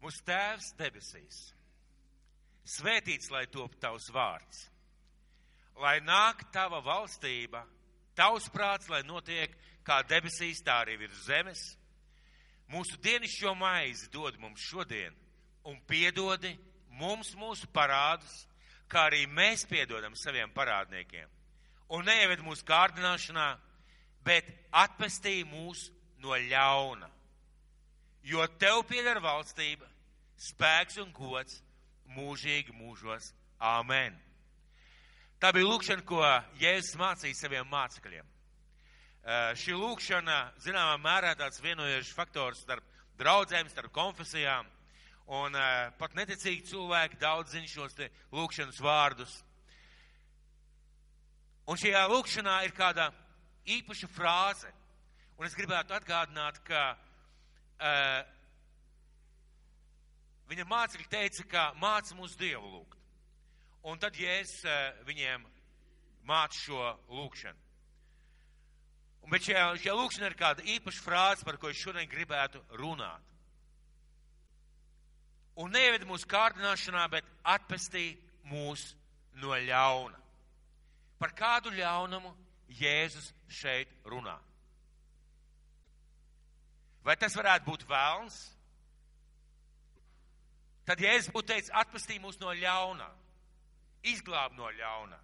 Mūsu Tēvs debesīs, svētīts lai top tavs vārds, lai nāk tava valstība, tavs prāts, lai notiek kā debesīs, tā arī virs zemes. Mūsu dienišķo maizi dod mums šodien un piedodi mums mūsu parādus, kā arī mēs piedodam saviem parādniekiem. Un neieved mūsu kārdināšanā, bet atpestī mūs no ļauna. Jo tev pieder valstība, spēks un gods mūžīgi mūžos. Āmen. Tā bija lūkšana, ko Jēzus mācīja saviem mācekļiem. Šī lūkšana, zināmā mērā, tāds vienojošs faktors starp draudzēm, starp konfesijām, un pat neticīgi cilvēki daudz zina šos te lūkšanas vārdus. Un šajā lūkšanā ir kāda īpaša frāze, un es gribētu atgādināt, ka viņa mācekļi teica, ka māca mūs Dievu lūgt. Un tad Jēzus viņiem māca šo lūkšanu. Bet šajā lūkšanā ir kāda īpaša frāze, par ko es šodien gribētu runāt. Un neieved mūsu kārdināšanā, bet atpestī mūs no ļauna. Par kādu ļaunumu Jēzus šeit runā? Vai tas varētu būt velns? Tad Jēzus būtu teicis, atpestī mūs no ļaunā, izglāb no ļaunā,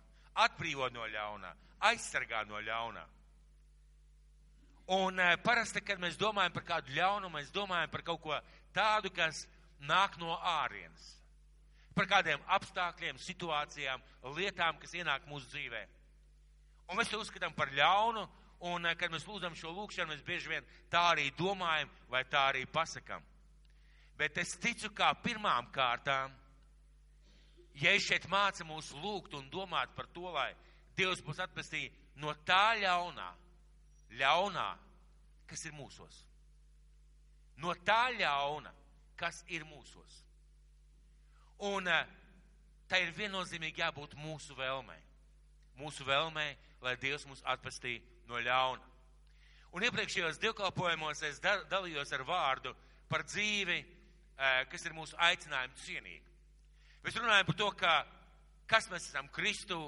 atbrīvo no ļaunā, aizsargā no ļaunā. Un parasti, kad mēs domājam par kādu ļaunumu, mēs domājam par kaut ko tādu, kas nāk no ārienes. Par kādiem apstākļiem, situācijām, lietām, kas ienāk mūsu dzīvē. Un mēs to uzskatām par ļaunu, un kad mēs lūdzam šo lūkšanu, mēs bieži vien tā arī domājam, vai tā arī pasakam. Bet es ticu, kā pirmām kārtām, ja es šeit māca mūs lūgt un domāt par to, lai Dievs mūs atpestī no tā ļaunā, kas ir mūsos. No tā ļauna, kas ir mūsos. Un tā ir viennozīmīgi jābūt mūsu vēlmei. Mūsu vēlmei, lai Dievs mūs atpestī no ļauna. Un iepriekšējos dievkalpojumos es dalījos ar vārdu par dzīvi, kas ir mūsu aicinājumu cienīgi. Mēs runājam par to, kas mēs esam Kristu,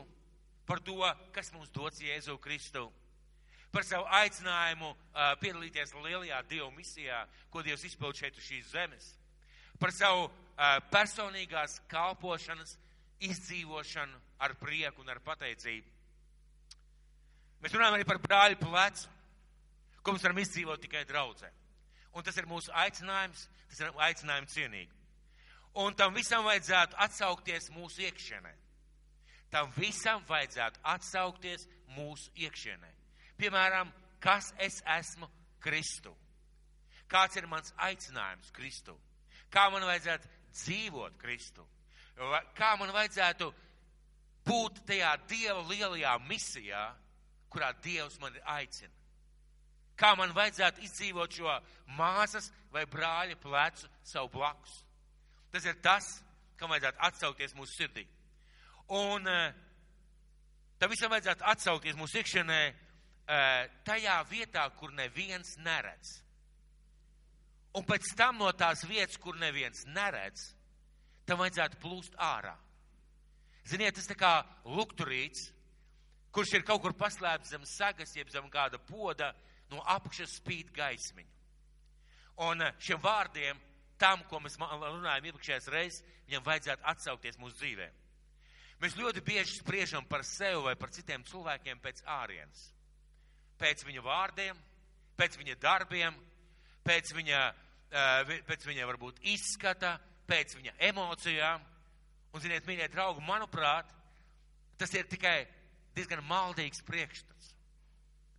par to, kas mums dots Jēzu Kristu, par savu aicinājumu piedalīties lielajā Dieva misijā, ko Dievs izpild šeit uz šīs zemes, par savu personīgās kalpošanas izdzīvošanu ar prieku un ar pateicību. Mēs runājam arī par brāļu plecu, ko mēs varam izdzīvot tikai draudzē. Un tas ir mūsu aicinājums, tas ir aicinājums cienīgi. Un tam visam vajadzētu atsaukties mūsu iekšienē. Tam visam vajadzētu atsaukties mūsu iekšienē. Piemēram, kas es esmu Kristu? Kāds ir mans aicinājums Kristu? Kā man vajadzētu dzīvot Kristu? Kā man vajadzētu būt tajā Dieva lielajā misijā, kurā Dievs mani aicina? Kā man vajadzētu izdzīvot šo māsas vai brāļa plecu savu blakus? Tas ir tas, kam vajadzētu atsaukties mūsu sirdī. Un tam visam vajadzētu atsaukties mūsu iekšienē tajā vietā, kur neviens neredz. Un pēc tam no tās vietas, kur neviens neredz, tam vajadzētu plūst ārā. Ziniet, tas tā kā lukturīts, kurš ir kaut kur paslēpts zem sagas, jeb zem kāda poda, no apakšas spīd gaismiņa. Un šiem vārdiem, tam, ko mēs runājam iepriekšējās reizes, viņam vajadzētu atsaukties mūsu dzīvē. Mēs ļoti bieži spriežam par sevi vai par citiem cilvēkiem pēc ārienes. Pēc viņa vārdiem, pēc viņa darbiem, pēc viņa varbūt izskata, pēc viņa emocijām. Un, ziniet, mīļie draugi, manuprāt, tas ir tikai diezgan maldīgs priekšstats.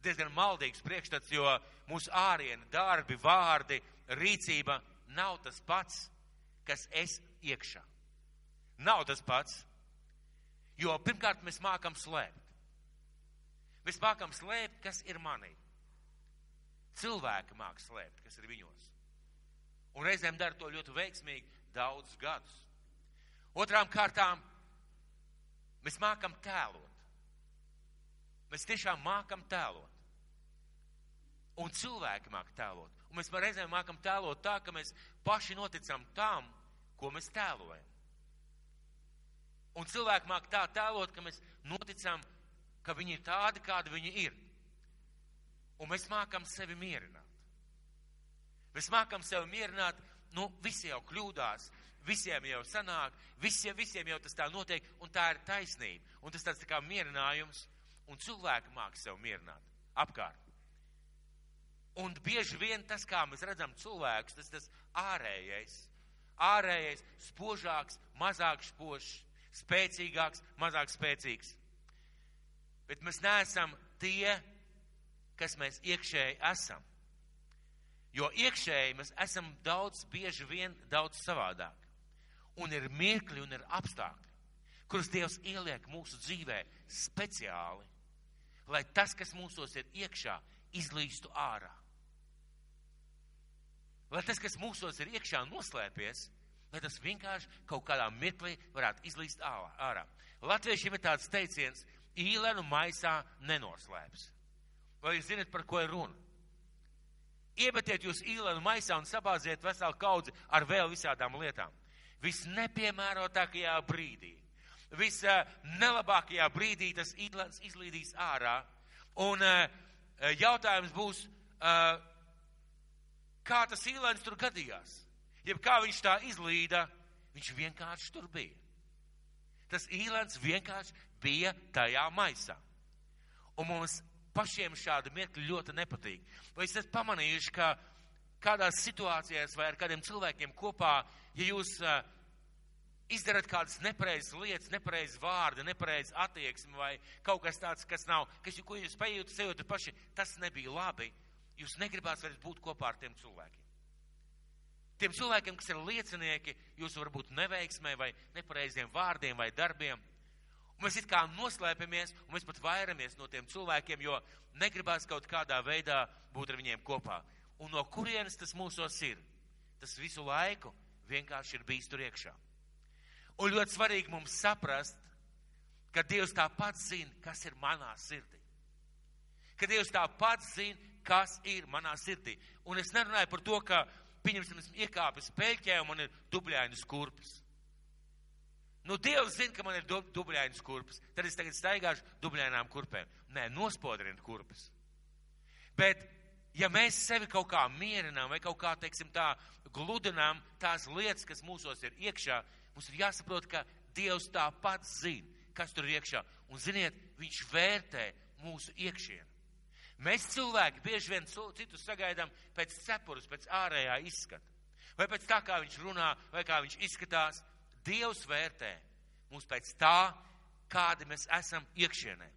Diezgan maldīgs priekšstats, jo mūsu āriena, darbi, vārdi, rīcība nav tas pats, kas es iekšā. Nav tas pats, jo pirmkārt mēs mākam slēpt. Mēs mākam slēpt, kas ir manī. Cilvēki māk slēpt, kas ir viņos. Un reizēm dara to ļoti veiksmīgi daudzus gadus. Otrām kārtām, mēs mākam tēlot. Mēs tiešām mākam tēlot. Un cilvēki māk tēlot. Un mēs reizēm mākam tēlot tā, ka mēs paši noticam tam, ko mēs tēlojam. Un cilvēki māk tā tēlot, ka mēs noticam, ka viņi ir tādi, kādi viņi ir. Un mēs mākam sevi mierināt. Mēs mākam sevi mierināt, visi jau kļūdās, visiem jau sanāk, visiem jau tas tā notiek, un tā ir taisnība. Un tas tāds tā kā mierinājums, un cilvēki māk sevi mierināt apkārt. Un bieži vien tas, kā mēs redzam cilvēkus, tas ārējais, spožāks, mazāk spožs, spēcīgāks, mazāk spēcīgs. Bet mēs neesam tie, kas mēs iekšēji esam. Jo iekšēji mēs esam bieži vien daudz savādāk. Un ir mirkļi un ir apstākļi, kurus Dievs ieliek mūsu dzīvē speciāli, lai tas, kas mūsos ir iekšā, izlīstu ārā. Lai tas, kas mūsos ir iekšā noslēpies, lai tas vienkārši kaut kādā mirklī varētu izlīst ārā. Latviešiem ir tāds teiciens, īlenu maisā nenoslēps. Vai jūs zinat, par ko ir runa? Iemetiet jūs īlenu maisā un sabāziet veselu kaudzi ar vēl visādām lietām. Visnepiemērotākajā brīdī, visnelabākajā brīdī tas īlens izlīdīs ārā. Un jautājums būs, kā tas īlens tur gadījās? Jeb kā viņš tā izlīda, viņš vienkārši tur bija. Tas īlens vienkārši bija tajā maisā. Un mums pašiem šādi mirkļi ļoti nepatīk. Vai jūs esat pamanījuši, ka kādās situācijās vai ar kādiem cilvēkiem kopā, ja jūs izdarat kādas nepareizas lietas, nepareizas vārdi, nepareizas attieksmi vai kaut kas tāds, kas nav, ko jūs sajūtat paši, tas nebija labi, jūs negribās vairs būt kopā ar tiem cilvēkiem. Tiem cilvēkiem, kas ir liecinieki, jūs varbūt neveiksmē vai nepareiziem vārdiem vai darbiem. Un mēs it kā noslēpamies, un mēs pat vairamies no tiem cilvēkiem, jo negribās kaut kādā veidā būt ar viņiem kopā. Un no kurienes tas mūsos ir? Tas visu laiku vienkārši ir bijis tur iekšā. Un ļoti svarīgi mums saprast, ka Dievs tāpat zina, kas ir manā sirdī. Ka Dievs tāpat zina, kas ir manā sirdī. Un es nerunāju par to, ka, pieņemsim, esmu iekāpis peļķē un man ir dubļainas kurpes. Dievs zina, ka man ir dubļainas kurpes. Tad es tagad staigāšu dubļainām kurpēm. Nē, nospodrinu kurpes. Bet, ja mēs sevi kaut kā mierinām vai kaut kā, teiksim tā, gludinām tās lietas, kas mūsos ir iekšā, mums ir jāsaprot, ka Dievs tāpat zina, kas tur ir iekšā. Un ziniet, viņš vērtē mūsu iekšienu. Mēs cilvēki bieži vien citus sagaidām pēc cepures, pēc ārējā izskata. Vai pēc tā, kā viņš runā, vai kā viņš izskatās. Dievs vērtē mūs pēc tā, kādi mēs esam iekšienē.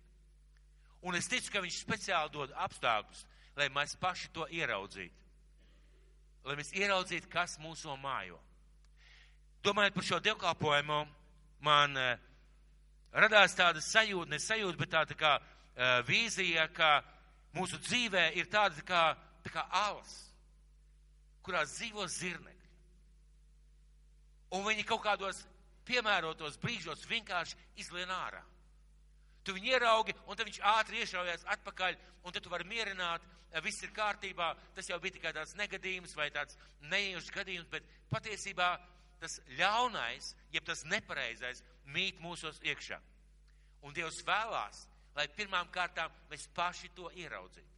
Un es ticu, ka viņš speciāli dod apstākļus, lai mēs paši to ieraudzītu. Lai mēs ieraudzītu, kas mūso mājo. Domājot par šo dievkalpojumu, man radās tāda sajūta, bet tāda kā vīzija, ka mūsu dzīvē ir tāda kā alas, kurās dzīvo zirnekļi. Un viņi kaut kādos piemērotos brīžos vienkārši izlien ārā. Tu viņu ieraugi, un tad viņš ātri iešaujās atpakaļ, un tad tu vari mierināt, viss ir kārtībā, tas jau bija tikai tāds negadījums vai tāds neiejušs gadījums, bet patiesībā tas ļaunais, jeb tas nepareizais, mīt mūsos iekšā. Un Dievs vēlās, lai pirmām kārtām mēs paši to ieraudzītu.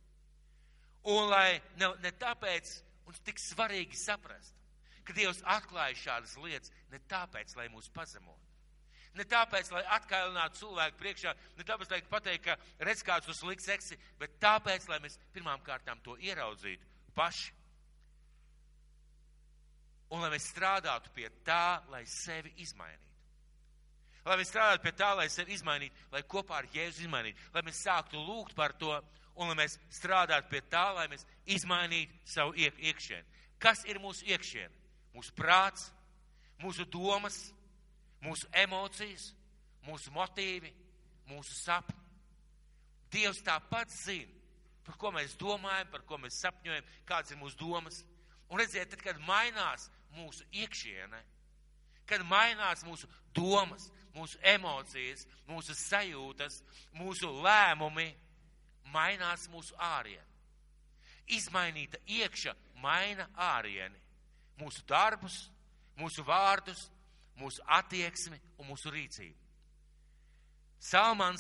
Un lai ne tāpēc mums tik svarīgi saprast, ka Dievs atklāja šādas lietas, ne tāpēc, lai mūs pazemotu. Ne tāpēc, lai atkailinātu cilvēku priekšā, ne tāpēc, lai pateikt, ka redz kāds uz slikts eksi, bet tāpēc, lai mēs pirmām kārtām to ieraudzītu paši. Un lai mēs strādātu pie tā, lai sevi izmainītu. Lai mēs strādātu pie tā, lai sevi izmainītu, lai kopā ar Jēzu izmainītu, lai mēs sāktu lūgt par to, un lai mēs strādātu pie tā, lai mēs izmainītu savu iekšienu. Kas ir mūsu iekšiena? Mūsu prāts, mūsu domas, mūsu emocijas, mūsu motīvi, mūsu sapņi. Dievs tāpat zina, par ko mēs domājam, par ko mēs sapņojam, kādas ir mūsu domas. Un redziet, tad, kad mainās mūsu iekšiene, kad mainās mūsu domas, mūsu emocijas, mūsu sajūtas, mūsu lēmumi, mainās mūsu āriena. Izmainīta iekša maina ārieni, mūsu darbus, mūsu vārdus, mūsu attieksmi un mūsu rīcību. Salmana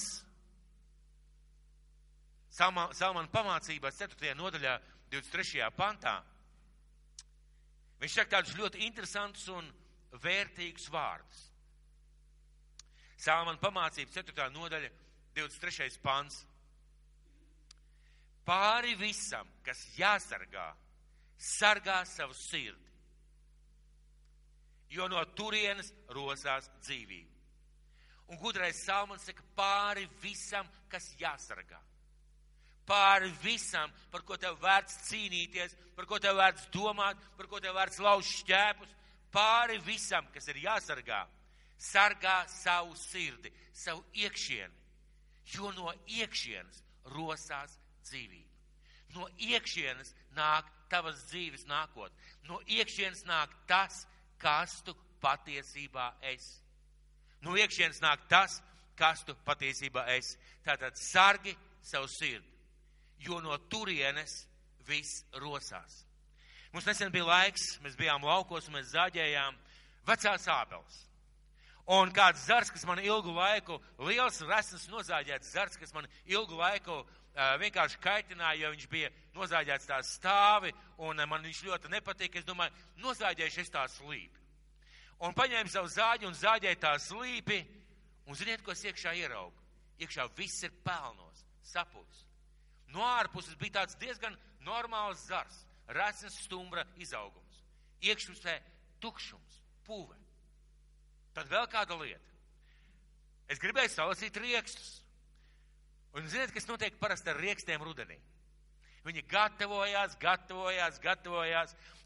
pamācībās 4. nodaļā, 23. pantā, viņš saka tādus ļoti interesantus un vērtīgus vārdus. Salmana pamācības 4. nodaļa, 23. pants. Pāri visam, kas jāsargā, sargā savu sirdi, jo no turienes rosās dzīvība. Un gudrais Salmans saka, pāri visam, kas jāsargā. Pāri visam, par ko tev vērts cīnīties, par ko tev vērts domāt, par ko tev vērts lauzt šķēpus, pāri visam, kas ir jāsargā, sargā savu sirdi, savu iekšieni, jo no iekšienes rosās dzīvība. No iekšienes nāk tavas dzīves nākotne. No iekšienes nāk tas, kas tu patiesībā esi. No iekšienes nāk tas, kas tu patiesībā esi. Tātad sargi savu sirdi, jo no turienes viss rosās. Mums nesen bija laiks, mēs bijām laukos un mēs zāģējām vecās ābeles. Un kāds zars, kas man ilgu laiku, liels resns nozāģēts zars, kas man ilgu laiku vienkārši kaitināja, jo viņš bija nozāģēts tā stāvi, un man viņš ļoti nepatīk. Es domāju, nozāģēšu es tā slīpi. Un paņēmu savu zāģi un zāģēju tā slīpi, un ziniet, ko es iekšā ieraugu? Iekšā viss ir pelnos, sapūs. No ārpuses bija tāds diezgan normāls zars, resns stumbra izaugums. Iekšpusē tukšums, puve. Tad vēl kāda lieta. Es gribēju salasīt riekstus. Un ziniet, kas notiek parasti ar riekstiem rudenī? Viņi gatavojās,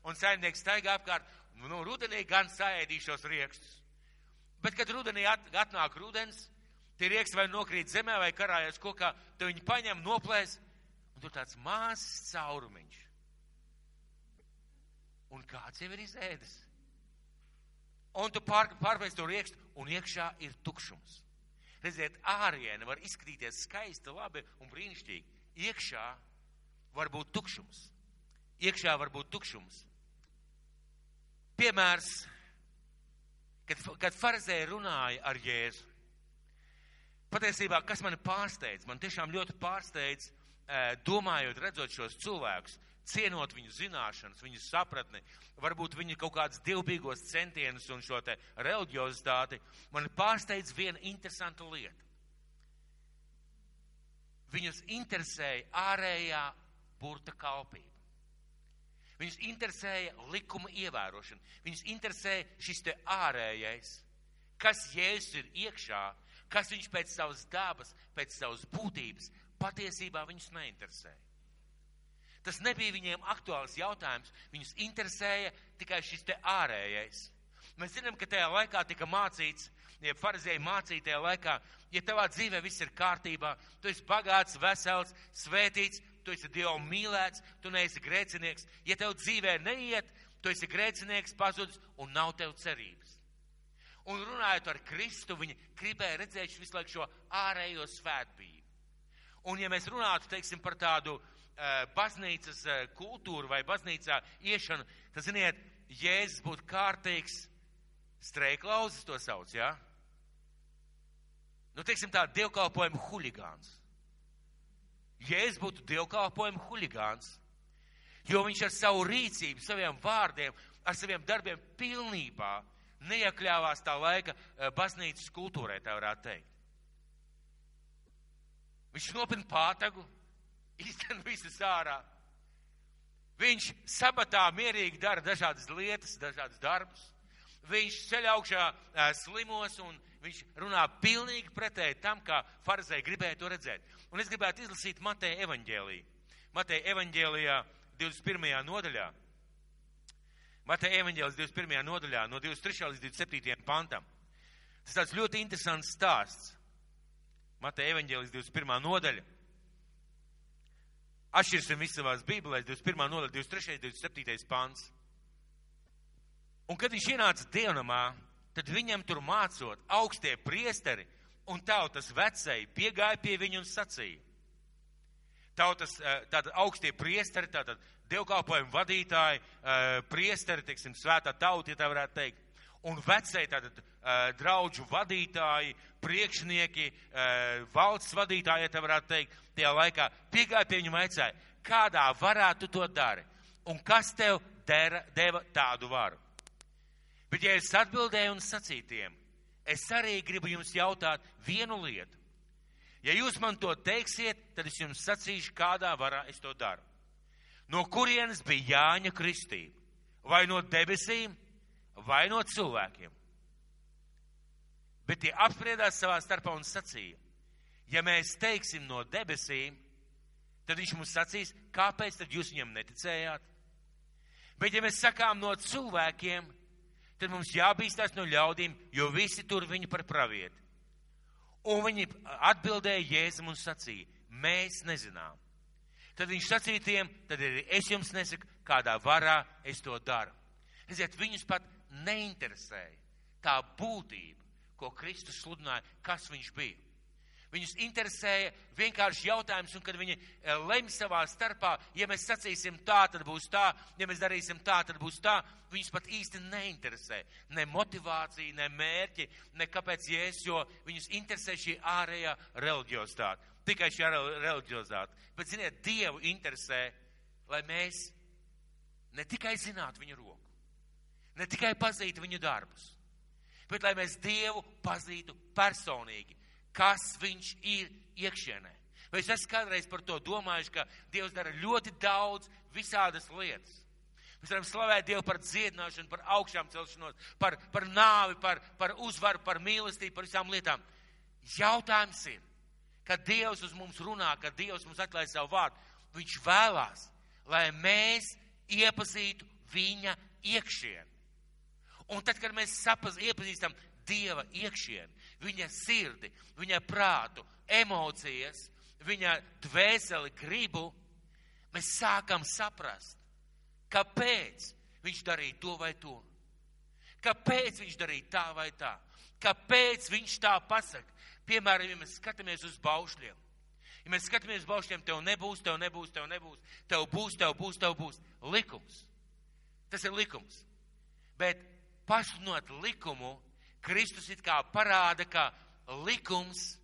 un saimnieks staigā apkārt, rudenī gan saēdīšos riekstus. Bet, kad rudenī atnāk rudens, tie rieksti vai nokrīt zemē, vai karājas kokā, tad viņi paņem, noplēs, un tur tāds mazs caurumiņš. Un kāds jau ir izēdis? Un tu pārpēc to riekstu, un iekšā ir tukšums. Redziet, āriene var izskatīties skaisti, labi un brīnišķīgi. Iekšā var būt tukšums. Piemērs, kad farizēji runāja ar Jēzu. Patiesībā, kas mani pārsteidz, man tiešām ļoti pārsteidz, domājot, redzot šos cilvēkus, cienot viņu zināšanas, viņu sapratni, varbūt viņu kaut kādas dievbijīgos centienus un šo te reliģiozitāti, man pārsteidz viena interesanta lieta. Viņus interesēja ārējā burta kalpība. Viņus interesēja likuma ievērošana. Viņus interesēja šis te ārējais, kas Jēzus ir iekšā, kas viņš pēc savas dabas, pēc savas būtības, patiesībā viņus neinteresēja. Tas nebija viņiem aktuāls jautājums, viņus interesēja tikai šis te ārējais. Mēs zinām, ka tajā laikā tika mācīts, ja farizēji mācīja tajā laikā, ja tavā dzīvē viss ir kārtībā, tu esi bagāts, vesels, svētīts, tu esi Dievu mīlēts, tu neesi grēcinieks. Ja tev dzīvē neiet, tu esi grēcinieks, pazudis un nav tev cerības. Un runājot ar Kristu, viņi gribēja redzēt visu laiku šo ārējo svētbību. Un ja mēs runātu, teiksim, par tādu baznīcas kultūru vai baznīcā iešanu, tad, ziniet, Jēzus būtu kārtīgs streiklauzis, to sauc, jā? Teiksim tā, dievkalpojuma huligāns. Jēzus būtu dievkalpojuma huligāns, jo viņš ar savu rīcību, saviem vārdiem, ar saviem darbiem pilnībā neiekļāvās tā laika baznīcas kultūrai, tā varētu teikt. Viņš nopina pātagu, izten visus ārā. Viņš sabatā mierīgi dara dažādas lietas, dažādas darbus. Viņš ceļ augšā slimos un viņš runā pilnīgi pretēji tam, kā farizēji gribēja to redzēt. Un es gribētu izlasīt Mateja evaņģēliju. Mateja evaņģēlijā 21. nodaļā. Mateja evaņģēlijas 21. nodaļā no 23. līdz 27. pantam. Tas tāds ļoti interesants stāsts. Mateja evaņģēlijas 21. nodaļa. Atšķirsim visu savās bībelēs, 21. nodaļa, 23. 27. pants. Un kad viņš ienāca dievnamā, tad viņam tur mācot augstie priesteri un tautas vecēji piegāja pie viņu un sacīja: Tautas, tātad augstie priesteri, tātad dievkalpojumu vadītāji, priesteri, teiksim, svētā tauta, ja tā varētu teikt, un vecēji, tātad draudžu vadītāji, priekšnieki, valsts vadītāji, ja tā varētu teikt, tajā laikā piegāja pie viņu vaicāja, kādā varā tu to dari, un kas tev deva tādu varu. Bet ja es atbildēju un sacīju tiem, es arī gribu jums jautāt vienu lietu. Ja jūs man to teiksiet, tad es jums sacīšu, kādā varā es to daru. No kurienes bija Jāņa kristība? Vai no debesīm, vai no cilvēkiem? Bet tie apspriedās savā starpā un sacīja, ja mēs teiksim no debesīm, tad viņš mums sacīs, kāpēc tad jūs viņam neticējāt? Bet ja mēs sakām no cilvēkiem, tad mums jābīstās no ļaudīm, jo visi tur viņu par pravieti. Un viņi atbildēja Jēzum un sacīja, mēs nezinām. Tad viņš sacīja tiem, tad arī es jums nesaku, kādā varā es to daru. Redziet, viņus pat neinteresēja tā būtība, ko Kristus sludināja, kas viņš bija. Viņus interesēja vienkārši jautājums, un kad viņi lemj savā starpā, ja mēs sacīsim tā, tad būs tā, ja mēs darīsim tā, tad būs tā, viņus pat īsti neinteresē. Ne motivācija, ne mērķi, ne kāpēc Jēzus, jo viņus interesē šī ārējā reliģiozitāte. Tikai šī reliģiozitāte. Bet, ziniet, Dievu interesē, lai mēs ne tikai zinātu viņu roku, ne tikai pazītu viņu darbus, bet lai mēs Dievu pazītu personīgi. Kas viņš ir iekšienē. Vai es esmu kādreiz par to domājuši, ka Dievs dara ļoti daudz visādas lietas. Mēs varam slavēt Dievu par dziedināšanu, par augšām celšanos, par nāvi, par uzvaru, par mīlestību, par visām lietām. Jautājums ir, kad Dievs uz mums runā, kad Dievs mums atklāj savu vārdu, viņš vēlās, lai mēs iepazītu viņa iekšieni. Un tad, kad mēs iepazīstam Dieva iekšieni, viņa sirdi, viņa prātu, emocijas, viņa dvēseli, gribu, mēs sākam saprast, kāpēc viņš darīja to vai to, kāpēc viņš darīja tā vai tā, kāpēc viņš tā pasaka. Piemēram, ja mēs skatāmies uz baušļiem, ja mēs skatāmies uz baušļiem, tev nebūs, tev nebūs, tev nebūs, tev būs, tev būs, tev būs. Likums. Tas ir likums. Bet pasludinot likumu, Kristus it kā parāda, ka likums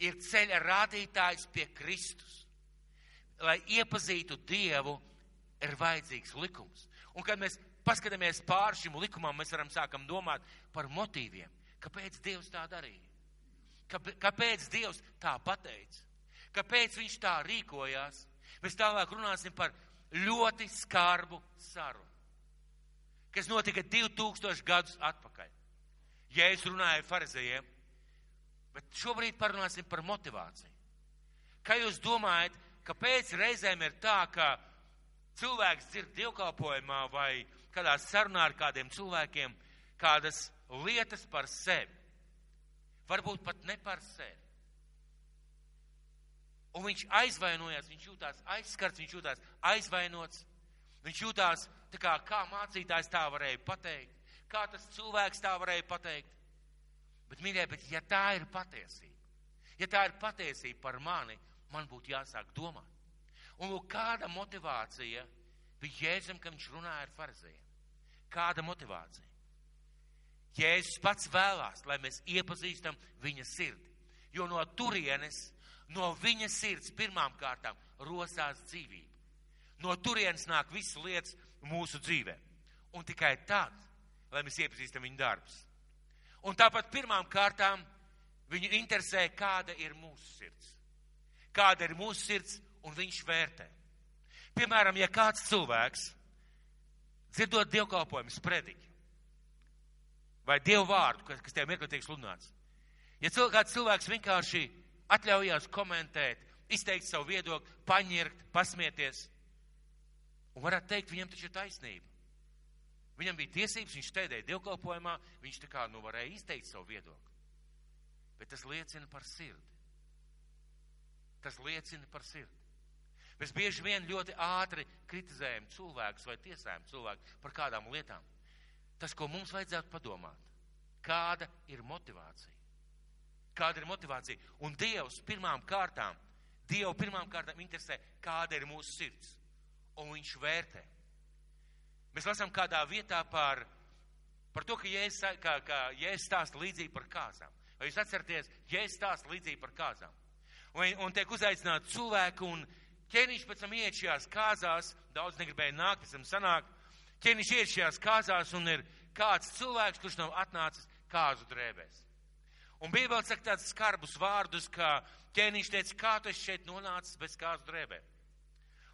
ir ceļa rādītājs pie Kristus. Lai iepazītu Dievu, ir vajadzīgs likums. Un kad mēs paskatāmies pār šim likumam, mēs varam sākam domāt par motīviem. Kāpēc Dievs tā darīja? Kāpēc Dievs tā pateica? Kāpēc viņš tā rīkojās? Mēs tālāk runāsim par ļoti skarbu sarunu, kas notika 2000 gadus atpakaļ. Jēzus runāja farizejiem, bet šobrīd parunāsim par motivāciju. Kā jūs domājat, kāpēc reizēm ir tā, ka cilvēks dzird dievkalpojumā vai kādā sarunā ar kādiem cilvēkiem kādas lietas par sevi? Varbūt pat ne par sevi. Un viņš aizvainojās, viņš jūtās aizskarts, viņš jūtās aizvainots, viņš jūtās tā kā mācītājs tā varēja pateikt, kā tas cilvēks tā varēja pateikt. Bet, mīļie, ja tā ir patiesība par mani, man būtu jāsāk domāt. Un lūk, kāda motivācija bija Jēzum, kad viņš runāja ar farizejiem? Kāda motivācija? Jēzus pats vēlās, lai mēs iepazīstam viņa sirdi. Jo no turienes, no viņa sirds pirmām kārtām rosās dzīvība. No turienes nāk visas lietas mūsu dzīvē. Un tikai tad, lai mēs iepazīstam viņa darbus. Un tāpat pirmām kārtām viņu interesē, kāda ir mūsu sirds. Kāda ir mūsu sirds, un viņš vērtē. Piemēram, ja kāds cilvēks, dzirdot dievkalpojumus prediķi, vai dievu vārdu, kas tev mirkli tiek sludināts, ja kāds cilvēks vienkārši atļaujās komentēt, izteikt savu viedokli, paņirkt, pasmieties, un varētu teikt, viņam taču ir taisnība. Viņam bija tiesības, viņš stēdēja dievkalpojumā, viņš tā kā varēja izteikt savu viedokli. Bet tas liecina par sirdi. Tas liecina par sirdi. Mēs bieži vien ļoti ātri kritizējam cilvēkus vai tiesājam cilvēku par kādām lietām. Tas, ko mums vajadzētu padomāt, kāda ir motivācija? Kāda ir motivācija? Un Dievs pirmām kārtām, Dievu pirmām kārtām interesē, kāda ir mūsu sirds. Un viņš vērtē. Mēs lasām kādā vietā par to, ka Jēzus stāsta līdzību par kāzām. Vai jūs atceraties, Jēzus stāsta līdzību par kāzām? Un tiek uzaicināti cilvēki, un ķēniņš pēc tam iet šajās kāzās, daudz negribēja nākt, pēc tam sanāk. Ķēniņš iet šajās kāzās, un ir kāds cilvēks, kurš nav atnācis kāzu drēbēs. Un Bībele saka tādus skarbus vārdus, ka ķēniņš teica, kā tu esi šeit nonācis bez kāzu drēbēm.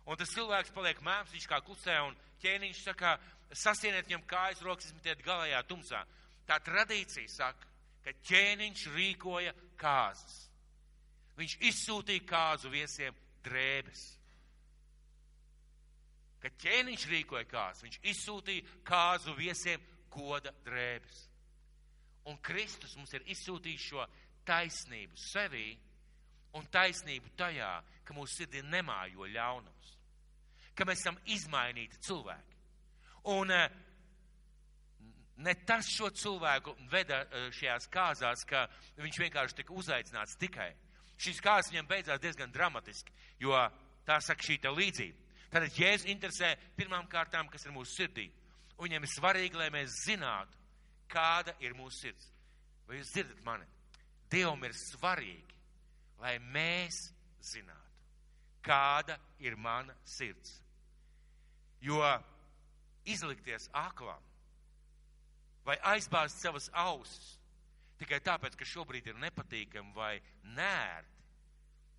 Un tas cilvēks paliek mēms, viņš kā klusē, un ķēniņš saka, sasieniet viņam kājas rokas, izmetiet galējā tumsā. Tā tradīcija saka, ka ķēniņš rīkoja kāzas. Viņš izsūtīja kāzu viesiem drēbes. Kad ķēniņš rīkoja kāzas, viņš izsūtīja kāzu viesiem goda drēbes. Un Kristus mums ir izsūtījis šo taisnību sevī un taisnību tajā, ka mūsu sirdī nemājo ļaunums. Ka mēs esam izmainīti cilvēki. Un ne tas šo cilvēku veda šajās kāzās, ka viņš vienkārši tika uzaicināts tikai. Šīs kāzas viņam beidzās diezgan dramatiski, jo tā saka šī te līdzība. Tātad Jēzus interesē pirmām kārtām, kas ir mūsu sirdī. Un viņam ir svarīgi, lai mēs zinātu, kāda ir mūsu sirds. Vai jūs dzirdat mani? Dievam ir svarīgi, lai mēs zinātu, kāda ir mana sirds. Jo izlikties aklam vai aizbāzt savas ausis tikai tāpēc, ka šobrīd ir nepatīkami vai nērti,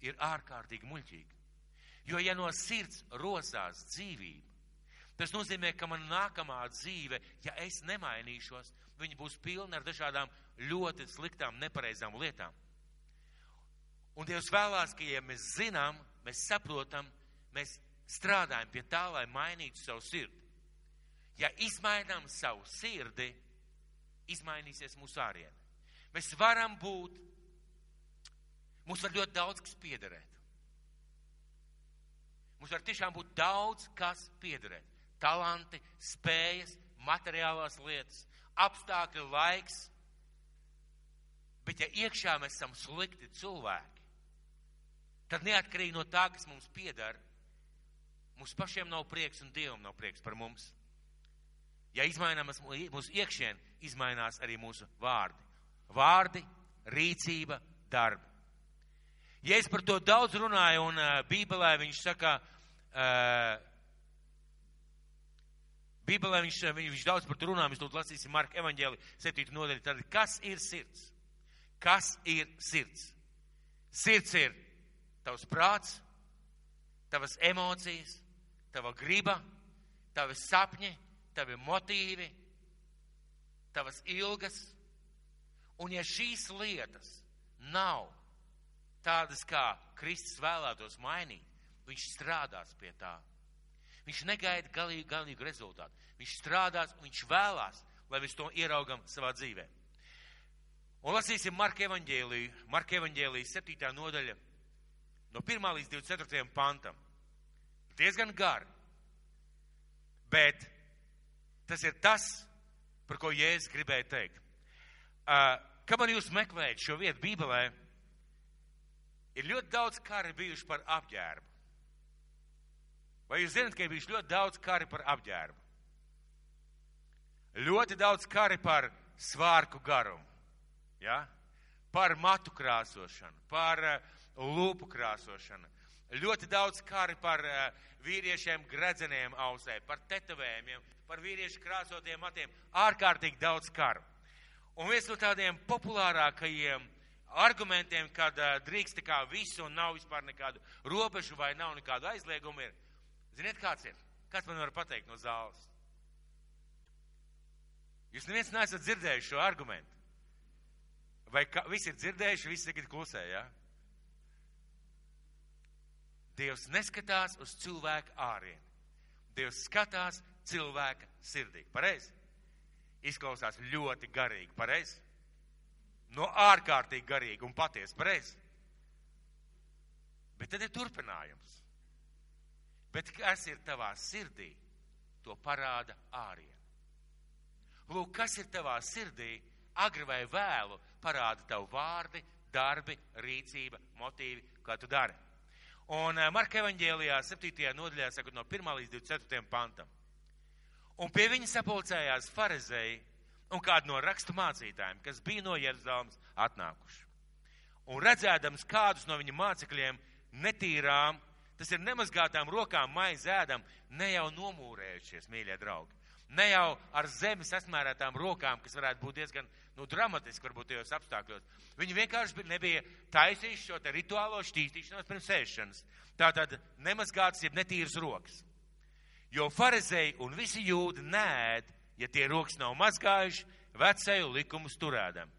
ir ārkārtīgi muļķīgi. Jo ja no sirds rosās dzīvība, tas nozīmē, ka man nākamā dzīve, ja es nemainīšos, viņa būs pilna ar dažādām ļoti sliktām, nepareizām lietām. Un Dievs vēlās, ka ja mēs zinām, mēs saprotam, mēs strādājam pie tā, lai mainītu savu sirdi. Ja izmainām savu sirdi, izmainīsies mūsu āriene. Mēs varam būt, mums var ļoti daudz kas piederēt. Mums var tiešām būt daudz kas piederēt. Talanti, spējas, materiālās lietas, apstākļi, laiks. Bet ja iekšā mēs esam slikti cilvēki, tad neatkarīgi no tā, kas mums pieder, mums pašiem nav prieks un Dievam nav prieks par mums. Ja izmainās mūsu iekšien, izmainās arī mūsu vārdi. Vārdi, rīcība, darbi. Ja es par to daudz runāju, un Bībelē viņš saka, Bībelē viņš daudz par to runā, mēs tūlīt lasīsim Marka evaņģēli 7. nodaļu. Tad kas ir sirds? Kas ir sirds? Sirds ir tavs prāts, tavas emocijas, tava griba, tavi sapņi, tavi motīvi, tavas ilgas. Un ja šīs lietas nav tādas, kā Kristus vēlētos mainīt, viņš strādās pie tā. Viņš negaida galīgu rezultātu. Viņš strādās un viņš vēlās, lai mēs to ieraugam savā dzīvē. Un lasīsim Marka evaņģēliju 7. nodaļa no 1. līdz 24. pantam. Diezgan gari. Bet tas ir tas, par ko Jēzus gribēja teikt. Kamēr jūs meklējat šo vietu Bībelē, ir ļoti daudz kari bijuši par apģērbu. Vai jūs zināt, ka ir bijuši ļoti daudz kari par apģērbu? Ļoti daudz kari par svārku garumu, ja? Par matu krāsošanu, par lūpu krāsošanu. Ļoti daudz kari par vīriešiem gredzeniem ausē, par tetovējumiem, par vīriešu krāsotiem matiem. Ārkārtīgi daudz karu. Un viens no tādiem populārākajiem argumentiem, kad drīkst tā kā visu un nav vispār nekādu robežu vai nav nekādu aizliegumu ir. Ziniet, kāds ir? Kāds man var pateikt no zāles? Jūs neviens neesat dzirdējuši šo argumentu. Vai visi ir dzirdējuši, visi tagad klusē, ja? Dievs neskatās uz cilvēka ārieni. Dievs skatās cilvēka sirdī. Pareizi? Izklausās ļoti garīgi. Pareizi? No ārkārtīgi garīgi un patiesi. Pareizi? Bet tad ir turpinājums. Bet kas ir tavā sirdī, to parāda āriene. Lūk, kas ir tavā sirdī, agri vai vēlu, parāda tavu vārdi, darbi, rīcība, motīvi, kā tu dari. Un Marka evaņģēlijā 7. nodaļā, sakot no 1. līdz 24. pantam. Un pie viņa sapulcējās farizēji un kādi no rakstu mācītājiem, kas bija no Jeruzalemes atnākuši. Un redzēdams kādus no viņa mācekļiem netīrām, tas ir nemazgātām rokām maizi ēdam, ne jau nomūrējušies, mīļie draugi. Ne jau ar zemi sasmērētām rokām, kas varētu būt diezgan dramatiski, varbūt tajos apstākļos. Viņi vienkārši nebija taisījuši šo te rituālo šķīstīšanos pirms ēšanas. Tātad nemazgātas, jeb netīras rokas. Jo farizēji un visi jūdi nēd, ja tie rokas nav mazgājuši, vecēju likumus turēdam.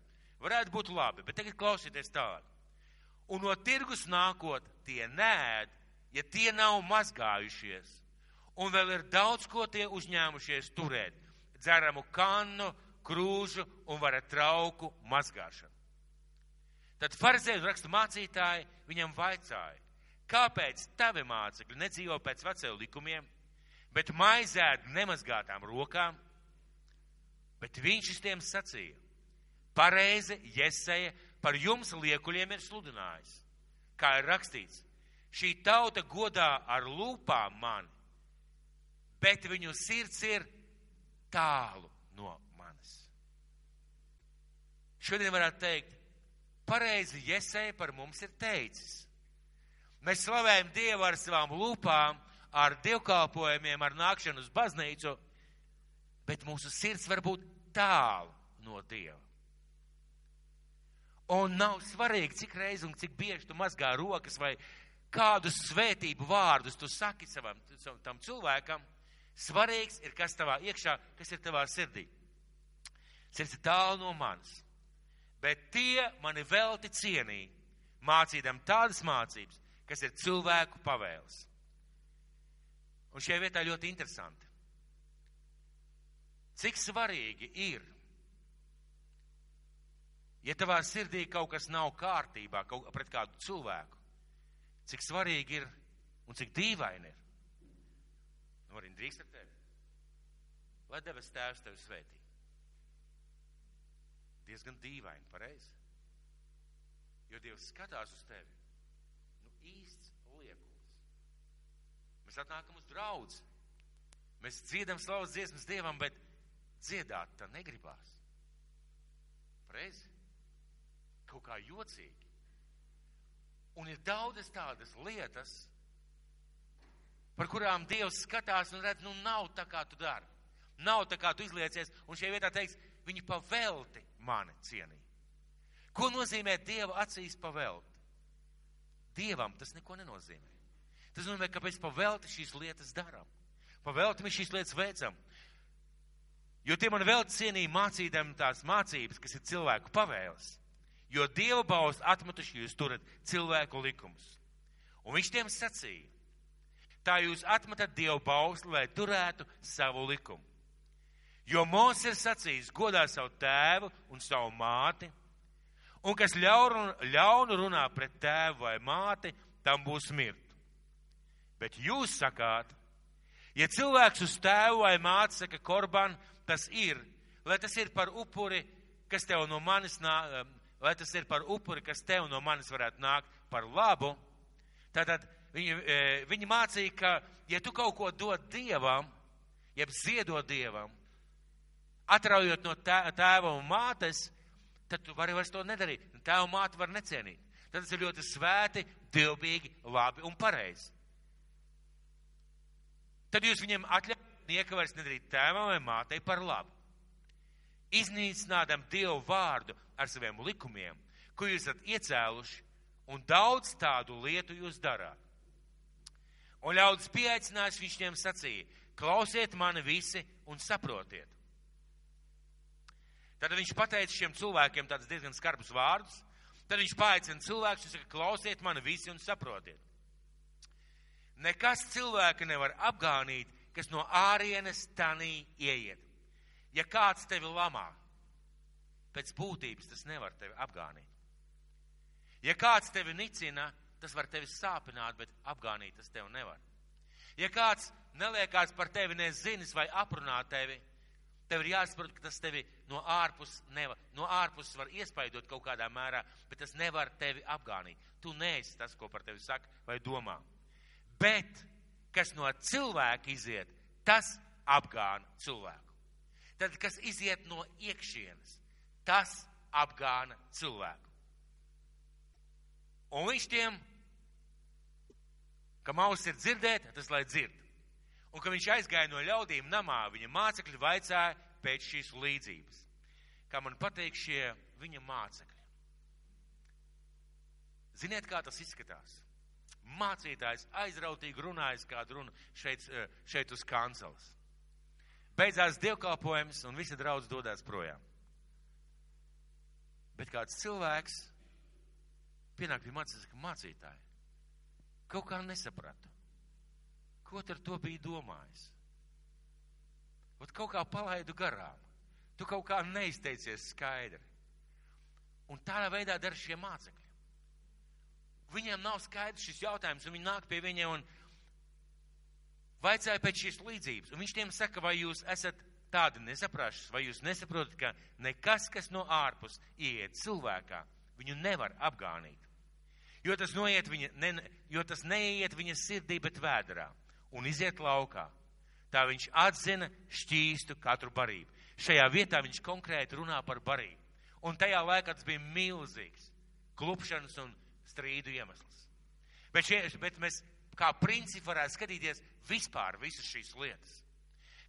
Varētu būt labi, bet tagad klausieties tālāk. Un no tirgus nākot, tie nēd, ja tie nav mazgājušies. Un vēl ir daudz, ko tie uzņēmušies turēt. Dzeramu kannu, krūžu un varat trauku mazgāšanu. Tad farizēji un rakstu mācītāji viņam vaicāja, kāpēc tavi mācekļi nedzīvo pēc vecēju likumiem, bet maizēd nemazgātām rokām? Bet viņš tiem sacīja, pareizi Jesaja par jums liekuļiem ir sludinājis. Kā ir rakstīts, šī tauta godā ar lūpām mani, bet viņu sirds ir tālu no manis. Šodien varētu teikt, pareizi Jesaja par mums ir teicis. Mēs slavējam Dievu ar savām lūpām, ar dievkalpojumiem, ar nākšanu uz baznīcu, bet mūsu sirds var būt tālu no Dieva. Un nav svarīgi, cik reizi un cik bieži tu mazgā rokas vai kādus svētību vārdus tu saki tam cilvēkam. Svarīgs ir, kas tavā iekšā, kas ir tavā sirdī. Sirds ir tālu no manis. Bet tie mani velti cienīja, mācīdam tādas mācības, kas ir cilvēku pavēles. Un šajā vietā ļoti interesanti. Cik svarīgi ir, ja tavā sirdī kaut kas nav kārtībā pret kādu cilvēku, cik svarīgi ir un cik dīvaini ir. Nu, arī drīkst ar tevi. Lai debes Tēvs tevi svētī. Diezgan dīvaini, pareizi. Jo Dievs skatās uz tevi. Nu, īsts liekulis. Mēs atnākam uz draudzi. Mēs dziedam slavas dziesmas Dievam, bet dziedāt tā negribās. Pareizi? Kaut kā jocīgi. Un ir daudzas tādas lietas, par kurām Dievs skatās un redz, nu nav tā, kā tu dari. Nav tā, kā tu izliecies, un šajā vietā teiks, viņi pavelti mani cienīja. Ko nozīmē Dieva acīs pavelti? Dievam tas neko nenozīmē. Tas nozīmē, ka mēs pavelti šīs lietas darām. Pavelti mēs šīs lietas veicam. Jo tie mani velti cienīja mācīdam tās mācības, kas ir cilvēku pavēles. Jo Dieva baus atmetuši jūs turat cilvēku likumus. Un viņš tiem sacīja, tā jūs atmetat Dievu bausli, lai turētu savu likumu. Jo Mūzes ir sacījis, godā savu tēvu un savu māti, un kas ļaunu runā pret tēvu vai māti, tam būs mirt. Bet jūs sakāt, ja cilvēks uz tēvu vai māti saka korban, tas ir, lai tas ir par upuri, kas tev no manis lai tas ir par upuri, kas tev no manis varētu nākt par labu, tātad viņi mācīja, ka, ja tu kaut ko dod Dievam, jeb ziedot Dievam, atraujot no tēva un mātes, tad tu vari vairs to nedarīt. Tēva un māte var necienīt. Tad tas ir ļoti svēti, dievbīgi, labi un pareizi. Tad jūs viņiem atļaujat nieka vairs nedarīt tēvam vai mātei par labu. Iznīcinādam Dievu vārdu ar saviem likumiem, ko jūs esat iecēluši, un daudz tādu lietu jūs darāt. Un ļaudis pieaicinājis, viņš tiem sacīja, klausiet mani visi un saprotiet. Tad viņš pateica šiem cilvēkiem tādus diezgan skarbus vārdus, tad viņš paaicina cilvēkus un saka, klausiet mani visi un saprotiet. Nekas cilvēka nevar apgānīt, kas no ārienes tanī ieiet. Ja kāds tevi lamā, pēc būtības tas nevar tevi apgānīt. Ja kāds tevi nicina, tas var tevi sāpināt, bet apgānīt tas tevi nevar. Ja kāds neliekās par tevi nezinis vai aprunā tevi, Tev ir jāsaprot, ka tas tevi no ārpus var iespaidot kaut kādā mērā, bet tas nevar tevi apgānīt. Tu neesi tas, ko par tevi saka vai domā. Bet, kas no cilvēka iziet, tas apgāna cilvēku. Tad, kas iziet no iekšienes, tas apgāna cilvēku. Un viņš tiem, kam auss ir dzirdēt, tas lai dzird. Un, kad viņš aizgāja no ļaudīm namā, viņa mācekļi vaicāja pēc šīs līdzības. Kā man patīk šie viņa mācekļi. Ziniet, kā tas izskatās? Mācītājs aizrautīgi runājas kādu runu šeit uz kanceles. Beidzās dievkalpojums un visi draudz dodās projām. Bet kāds cilvēks pienāk pie mācītāja, ka mācītāji kaut kā nesapratu. Ko ar to bija domājis? Ot kaut kā palaidu garām. Tu kaut kā neizteicies skaidri. Un tādā veidā dara šie mācekļi. Viņiem nav skaidrs šis jautājums, un viņi nāk pie viņiem un vaicāja pēc šīs līdzības. Un viņš tiem saka, vai jūs esat tādi nesaprašas, vai jūs nesaprotat, ka nekas, kas no ārpus ieiet cilvēkā, viņu nevar apgānīt. Jo tas neieiet viņa sirdī, bet vēderā. Un iziet laukā. Tā viņš atzina šķīstu katru barību. Šajā vietā viņš konkrēti runā par barību. Un tajā laikā tas bija milzīgs klupšanas un strīdu iemesls. Bet mēs kā principi varētu skatīties vispār visas šīs lietas.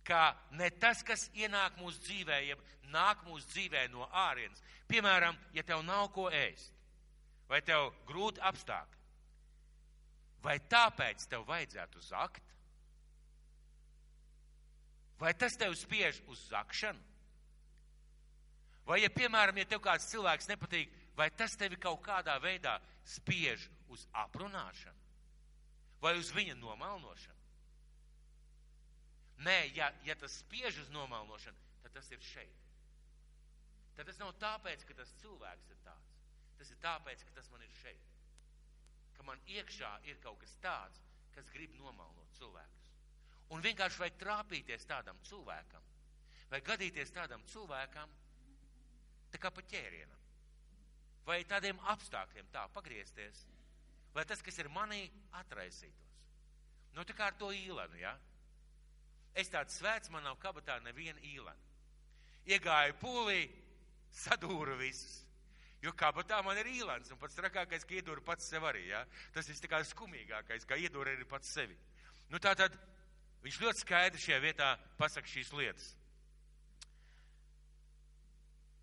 Kā ne tas, kas ienāk mūsu dzīvē, ja nāk mūsu dzīvē no ārienes. Piemēram, ja tev nav ko ēst, vai tev grūti apstākļi, vai tāpēc tev vajadzētu zakt? Vai tas tev spiež uz zakšanu? Vai, ja, piemēram, ja tev kāds cilvēks nepatīk, vai tas tevi kaut kādā veidā spiež uz aprunāšanu? Vai uz viņa nomalnošanu? Nē, ja tas spiež uz nomalnošanu, tad tas ir šeit. Tad tas nav tāpēc, ka tas cilvēks ir tāds. Tas ir tāpēc, ka tas man ir šeit. Ka man iekšā ir kaut kas tāds, kas grib nomalnot cilvēkus. Un vienkārši vajag trāpīties tādam cilvēkam, vai gadīties tādam cilvēkam, tā kā pa ķērienam, vai tādiem apstākļiem tā pagriezties, lai tas, kas ir manī, atraisītos. Nu, tā kā ar to īlenu, ja? Es tāds svēts, man nav kabatā neviena īlena. Iegāju pūlī, sadūru visus, jo kabatā man ir īlens, un pats trakākais, ka iedūru pats sev arī, ja? Tas viss tā kā skumīgākais, kā iedūru arī pats sevi. Nu, tātad, viņš ļoti skaidri šajā vietā pasaka šīs lietas.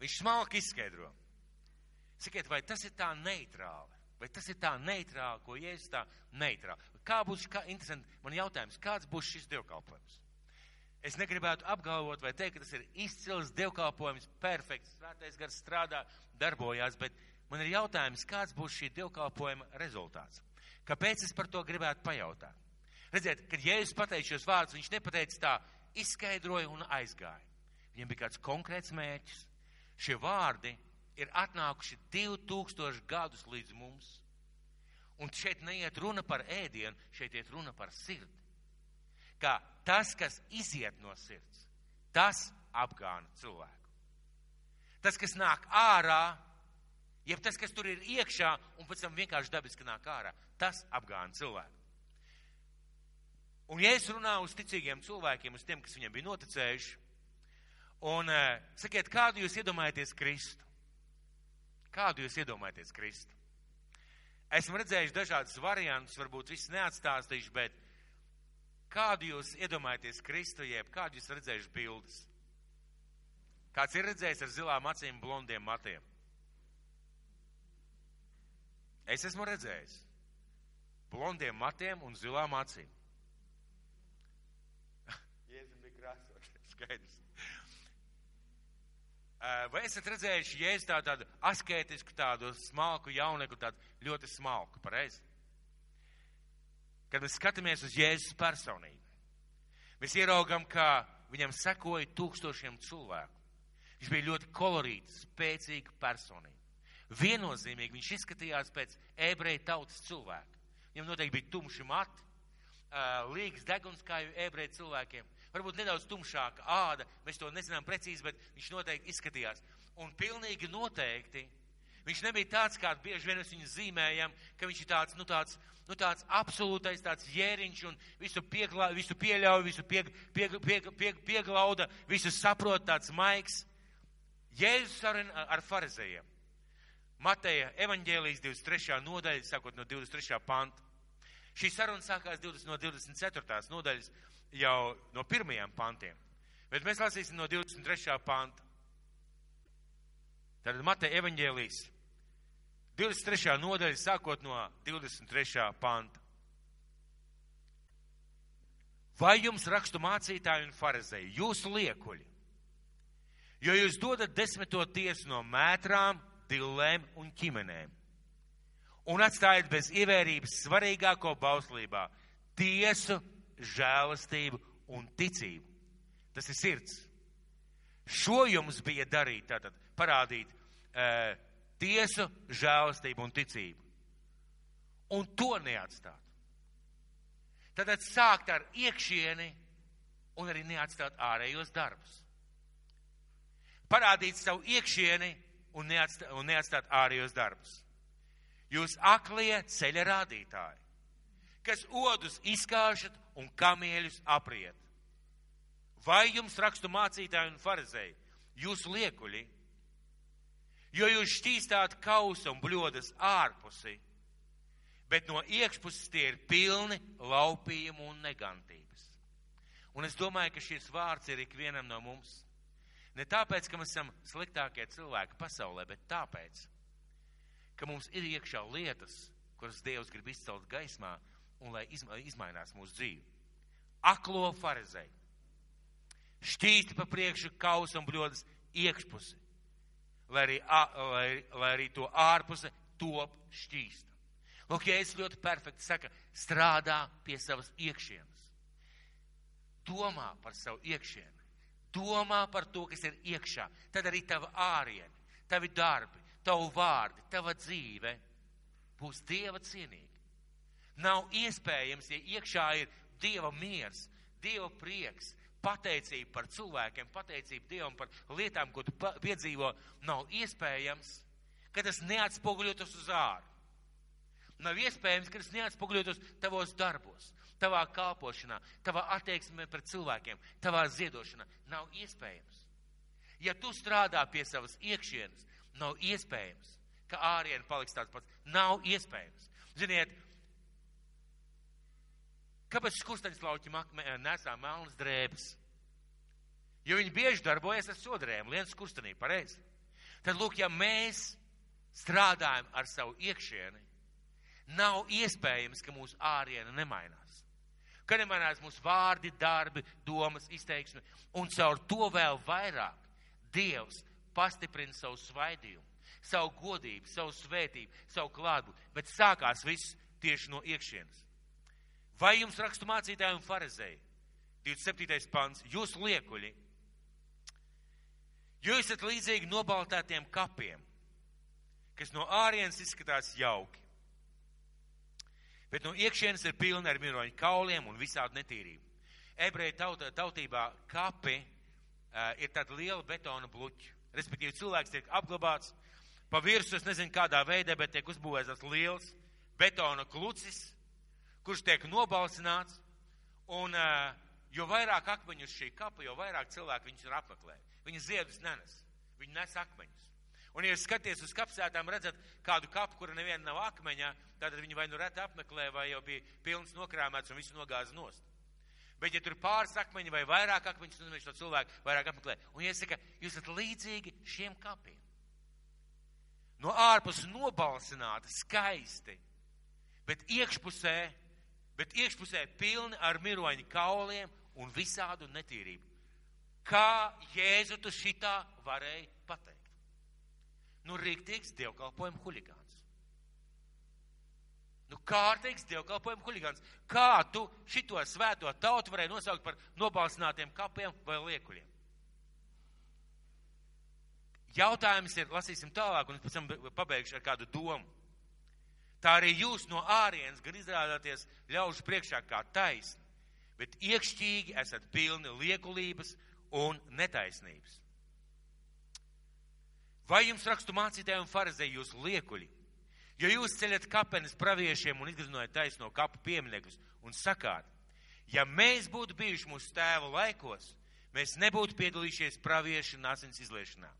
Viņš smalki izskaidro. Sakiet, vai tas ir tā neitrāli? Vai tas ir tā neitrāli, ko Jēzus tā neitrāli? Interesanti, man jautājums, kāds būs šis dievkalpojums? Es negribētu apgalvot vai teikt, ka tas ir izcils dievkalpojums, perfekts, svētais gars strādā, darbojās, bet man ir jautājums, kāds būs šī dievkalpojuma rezultāts? Kāpēc es par to gribētu pajautāt? Redziet, kad Jēzus pateica šos vārdus, viņš nepateica tā, izskaidroja un aizgāja. Viņam bija kāds konkrēts mērķis. Šie vārdi ir atnākuši 2000 gadus līdz mums. Un šeit neiet runa par ēdienu, šeit iet runa par sirdi. Kā tas, kas iziet no sirds, tas apgāna cilvēku. Tas, kas nāk ārā, jeb tas, kas tur ir iekšā un pēc tam vienkārši dabiski nāk ārā, tas apgāna cilvēku. Un ja es runāju uz ticīgiem cilvēkiem, uz tiem, kas viņiem bija noticējuši, un sakiet, kādu jūs iedomājaties Kristu? Kādu jūs iedomājaties Kristu? Esmu redzējuši dažādus variantus, varbūt viss neatstāstīšu, bet kādu jūs iedomājaties Kristu, jeb kādu jūs redzējuši bildes? Kāds ir redzējis ar zilām acīm, blondiem matiem? Es esmu redzējis blondiem matiem un zilām acīm. Skaidrs. Vai esat redzējuši Jēzus tādu askētisku, tādu smalku jaunieku, tādu ļoti smalku, pareizi? Kad mēs skatāmies uz Jēzus personību, mēs ieraugam, ka viņam sekoja 1000 cilvēku. Viņš bija ļoti kolorīts, spēcīga personība. Viennozīmīgi viņš izskatījās pēc ebreju tautas cilvēka. Viņam noteikti bija tumši mati, līgas deguns kā ebreju cilvēkiem. Varbūt nedaudz tumšāka āda, mēs to nezinām precīzi, bet viņš noteikti izskatījās. Un pilnīgi noteikti, viņš nebija tāds, kā bieži vien mēs viņu zīmējam, ka viņš ir tāds absolūtais tāds jēriņš un visu pieļauj, visu pieglauda, visu saprot, tāds maigs. Jēzus ar farizējiem. Mateja evaņģēlijas 23. nodaļa, sākot no 23. panta. Šī saruna sākās no 24. nodaļas jau no 1. pantiem, bet mēs lasīsim no 23. panta. Tad Mateja evaņģēlijas 23. nodaļa, sākot no 23. panta. Vai jums rakstu mācītāji un farizēji, jūsu liekuļi, jo jūs dodat 10. tiesu no mētrām, dillēm un ķimenēm, un atstājat bez ievērības svarīgāko bauslībā - tiesu, žēlastību un ticību. Tas ir sirds. Šo jums bija darīt, tātad parādīt tiesu, žēlastību un ticību. Un to neatstāt. Tātad sākt ar iekšieni un arī neatstāt ārējos darbus. Parādīt savu iekšieni un neatstāt ārējos darbus. Jūs aklie ceļa rādītāji, kas odus izkāšat un kamieļus apriet. Vai jums rakstu mācītāji un farizēji, jūsu liekuļi, jo jūs šķīstāt kausa un bļodas ārpusi, bet no iekšpuses tie ir pilni laupījumu un negantības. Un es domāju, ka šis vārds ir ikvienam no mums. Ne tāpēc, ka mēs esam sliktākie cilvēki pasaulē, bet tāpēc, ka mums ir iekšā lietas, kuras Dievs grib izcelt gaismā un lai izmainās mūsu dzīvi. Aklo farizēju. Šķīsti pa priekšu kausa un bļodas iekšpusi, lai arī to ārpuse top šķīsta. Lūk, Jēzus ļoti perfekti saka, strādā pie savas iekšienes. Domā par savu iekšieni. Domā par to, kas ir iekšā. Tad arī tava ārieni, tavi darbi, tavu vārdi, tava dzīve būs Dieva cienīgi. Nav iespējams, ja iekšā ir Dieva miers, Dieva prieks, pateicība par cilvēkiem, pateicība Dievam par lietām, ko tu piedzīvo, nav iespējams, ka tas neatspoguļotos uz āru. Nav iespējams, ka tas neatspoguļotos tavos darbos, tavā kalpošanā, tavā attieksmē pret cilvēkiem, tavā ziedošanā. Nav iespējams. Ja tu strādā pie savas iekšienes, nav iespējams, ka ārieni paliks tāds pats. Nav iespējams. Ziniet, kāpēc skursteņslauķi nesā melnas drēbes? Jo viņi bieži darbojas ar sodrēm, liens skurstenī, pareizi. Tad, lūk, ja mēs strādājam ar savu iekšieni, nav iespējams, ka mūsu āriena nemainās. Ka nemainās mūsu vārdi, darbi, domas, izteiksmi, un caur to vēl vairāk Dievs pastiprina savu svaidījumu, savu godību, savu svētību, savu klātbūtni, bet sākās viss tieši no iekšienes. Vai jums rakstu mācītāji un farizēji? 27. pants. Jūs liekuļi, jo esat līdzīgi nobaltētiem kapiem, kas no ārienes izskatās jauki, bet no iekšienes ir pilni ar miroņu kauliem un visādu netīrību. Ebreju tautībā kapi ir tāda liela betona bluķa. Respektīvi, cilvēks tiek apglabāts pa virsu, es nezinu kādā veidā, bet tiek uzbūvēts tāds liels betona klucis, kurš tiek nobalsināts, un jo vairāk akmeņu uz šī kapa, jo vairāk cilvēku viņus ir apmeklē. Viņi ziedus nenes, viņi nes akmeņus. Un, ja jūs skaties uz kapsētām, redzat kādu kapu, kura neviena nav akmeņā, tad viņi vai nu reti apmeklē, vai jau bija pilns nokrāmēts un visu nogāza nost. Bet, ja tur pāris akmeņi vai vairāk akmeņus, tad viņš to cilvēku vairāk apmeklē. Un, ja saka, jūs esat līdzīgi šiem kapiem. No ārpus nobalsināti, skaisti, bet iekšpusē pilni ar miroņu kauliem un visādu netīrību. Kā Jēzu tu šitā varēja pateikt? Nu, rīktīgs dievkalpojuma huligāns. Nu, kārtīgs dievkalpojuma huligāns. Kā tu šito svēto tautu varēja nosaukt par nobalsinātiem kapiem vai liekuļiem? Jautājums ir, lasīsim tālāk, un es pēc tam pabeigšu ar kādu domu. Tā arī jūs no ārienes gan izrādāties ļaužu priekšā kā taisni, bet iekšķīgi esat pilni liekulības un netaisnības. Vai jums rakstu mācītāji un farizēji jūs liekuļi? Jo jūs ceļat kapenes praviešiem un izgriznojat taisno kapu pieminekļus un sakāt, ja mēs būtu bijuši mūsu tēva laikos, mēs nebūtu piedalījušies praviešu un asins izliešanā.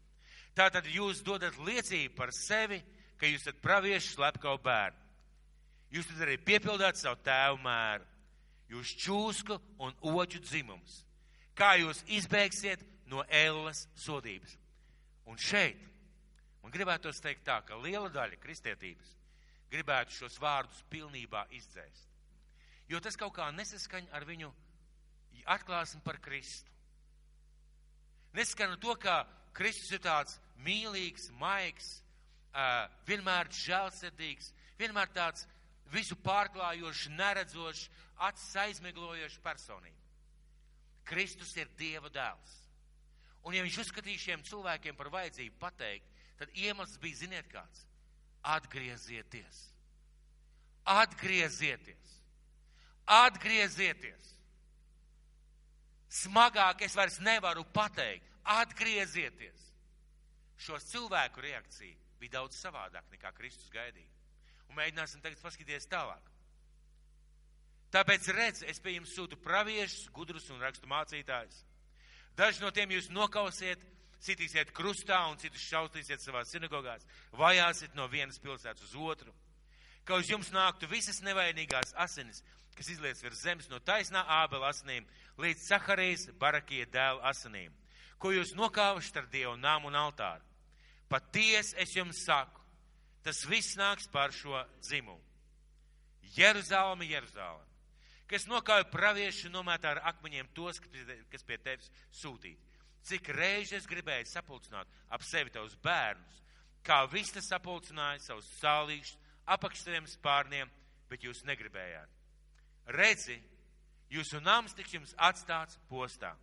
Tātad jūs dodat liecību par sevi, ka jūs esat praviešu slepkavu bērni. Jūs tad arī piepildāt savu tēvu mēru. Jūs čūsku un oķu dzimums. Kā jūs izbēgsiet no ēlas sodības? Un šeit man gribētos teikt tā, ka liela daļa kristietības gribētu šos vārdus pilnībā izdzēst. Jo tas kaut kā nesaskaņ ar viņu atklāsmi par Kristu. Nesaskaņ ar to, ka Kristus ir tāds mīlīgs, maigs, vienmēr žēlsirdīgs, vienmēr tāds visu pārklājošs, neredzošs, acis aizmiglojošs personība. Kristus ir Dieva dēls. Un ja viņš uzskatīja šiem cilvēkiem par vajadzību pateikt, tad iemesls bija, ziniet kāds, atgriezieties. Atgriezieties. Atgriezieties. Smagāk es vairs nevaru pateikt. Atgriezieties. Šo cilvēku reakcija bija daudz savādāk nekā Kristus gaidīja. Un mēģināsim tagad paskatīties tālāk. Tāpēc redz, es pie jums sūtu praviešus, gudrus un rakstu mācītājus. Daži no tiem jūs nokausiet, sitīsiet krustā un citus šaustīsiet savās sinagogās, vajāsiet no vienas pilsētas uz otru. Ka uz jums nāktu visas nevainīgās asinis, kas izliets virs zemes no taisnā Ābela asinīm līdz Saharijas Barakija dēla asinīm, ko jūs nokāvuši ar Dievu nāmu un altāru. Patiesi es jums saku, tas viss nāks par šo dzimumu. Jeruzaleme, Jeruzaleme, kas nokāja praviešu un nomētā ar akmeņiem tos, kas pie tevis sūtīti. Cik reizes gribēju sapulcināt ap sevi tavus bērnus, kā vista sapulcināja savus sālīšus apakš saviem spārniem, bet jūs negribējāt. Redzi, jūsu nams tiks jums atstāts postā,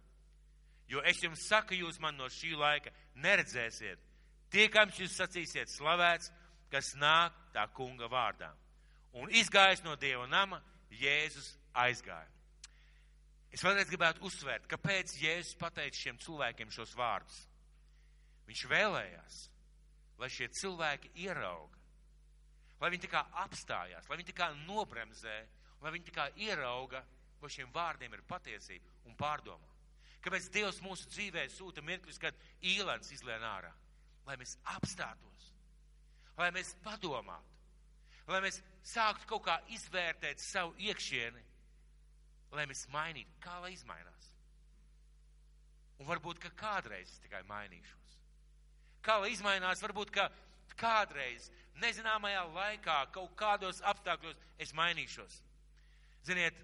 jo es jums saku, jūs man no šī laika neredzēsiet, tiekams jūs sacīsiet slavēts, kas nāk tā kunga vārdā. Un izgājis no Dieva nama, Jēzus aizgāja. Es vēlreiz gribētu uzsvērt, kāpēc Jēzus pateica šiem cilvēkiem šos vārdus. Viņš vēlējās, lai šie cilvēki ierauga, lai viņi tā kā apstājās, lai viņi tā kā nobremzē, lai viņi tā kā ierauga, vai šiem vārdiem ir patiesība un pārdomā. Kāpēc Dievs mūsu dzīvē sūta mirkļus, kad īlens izlien ārā? Lai mēs apstātos, lai mēs padomātu, lai mēs sāktu kaut kā izvērtēt savu iekšieni, lai mēs mainītu, kā lai izmainās. Un varbūt, ka kādreiz es tikai mainīšos. Kā lai izmainās, varbūt, ka kādreiz, nezināmajā laikā, kaut kādos apstākļos es mainīšos. Ziniet,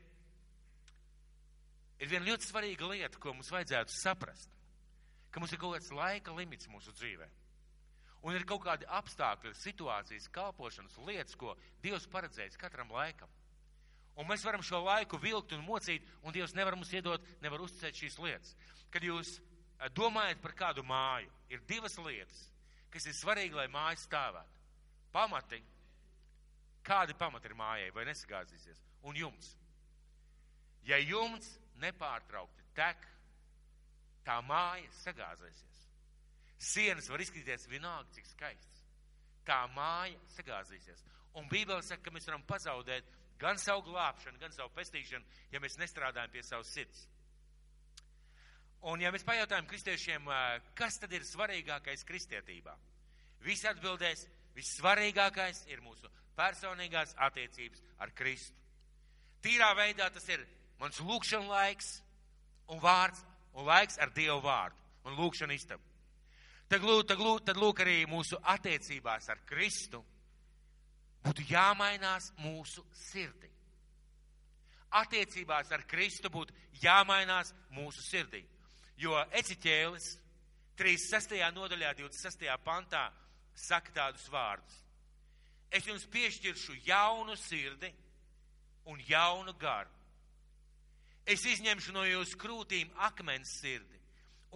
ir viena ļoti svarīga lieta, ko mums vajadzētu saprast, ka mums ir kaut kāds laika limits mūsu dzīvē. Un ir kaut kādi apstākļi, situācijas, kalpošanas lietas, ko Dievs paredzējis katram laikam. Un mēs varam šo laiku vilkt un mocīt, un Dievs nevar mums iedot, nevar uzticēt šīs lietas. Kad jūs domājat par kādu māju, ir divas lietas, kas ir svarīgi, lai māja stāvētu. Pamati, kādi pamati ir mājai, vai nesagāzīsies, un jumts. Ja jumts nepārtraukti tek, tā māja sagāzēsies. Sienas var izskatīties vienalga, cik skaists. Tā māja sagāzīsies. Un Bībele saka, ka mēs varam pazaudēt gan savu glābšanu, gan savu pestīšanu, ja mēs nestrādājam pie savas sirds. Un ja mēs pajautājam kristiešiem, kas tad ir svarīgākais kristietībā? Visi atbildēs, vissvarīgākais ir mūsu personīgās attiecības ar Kristu. Tīrā veidā tas ir mans lūkšana laiks un vārds un laiks ar Dievu vārdu un lūkšana istabu. Tad lūk arī mūsu attiecībās ar Kristu būtu jāmainās mūsu sirdī. Attiecībās ar Kristu būtu jāmainās mūsu sirdī. Jo Eciķēlis 36. nodaļā 26. pantā saka tādus vārdus. Es jums piešķiršu jaunu sirdi un jaunu garu. Es izņemšu no jūsu krūtīm akmens sirdi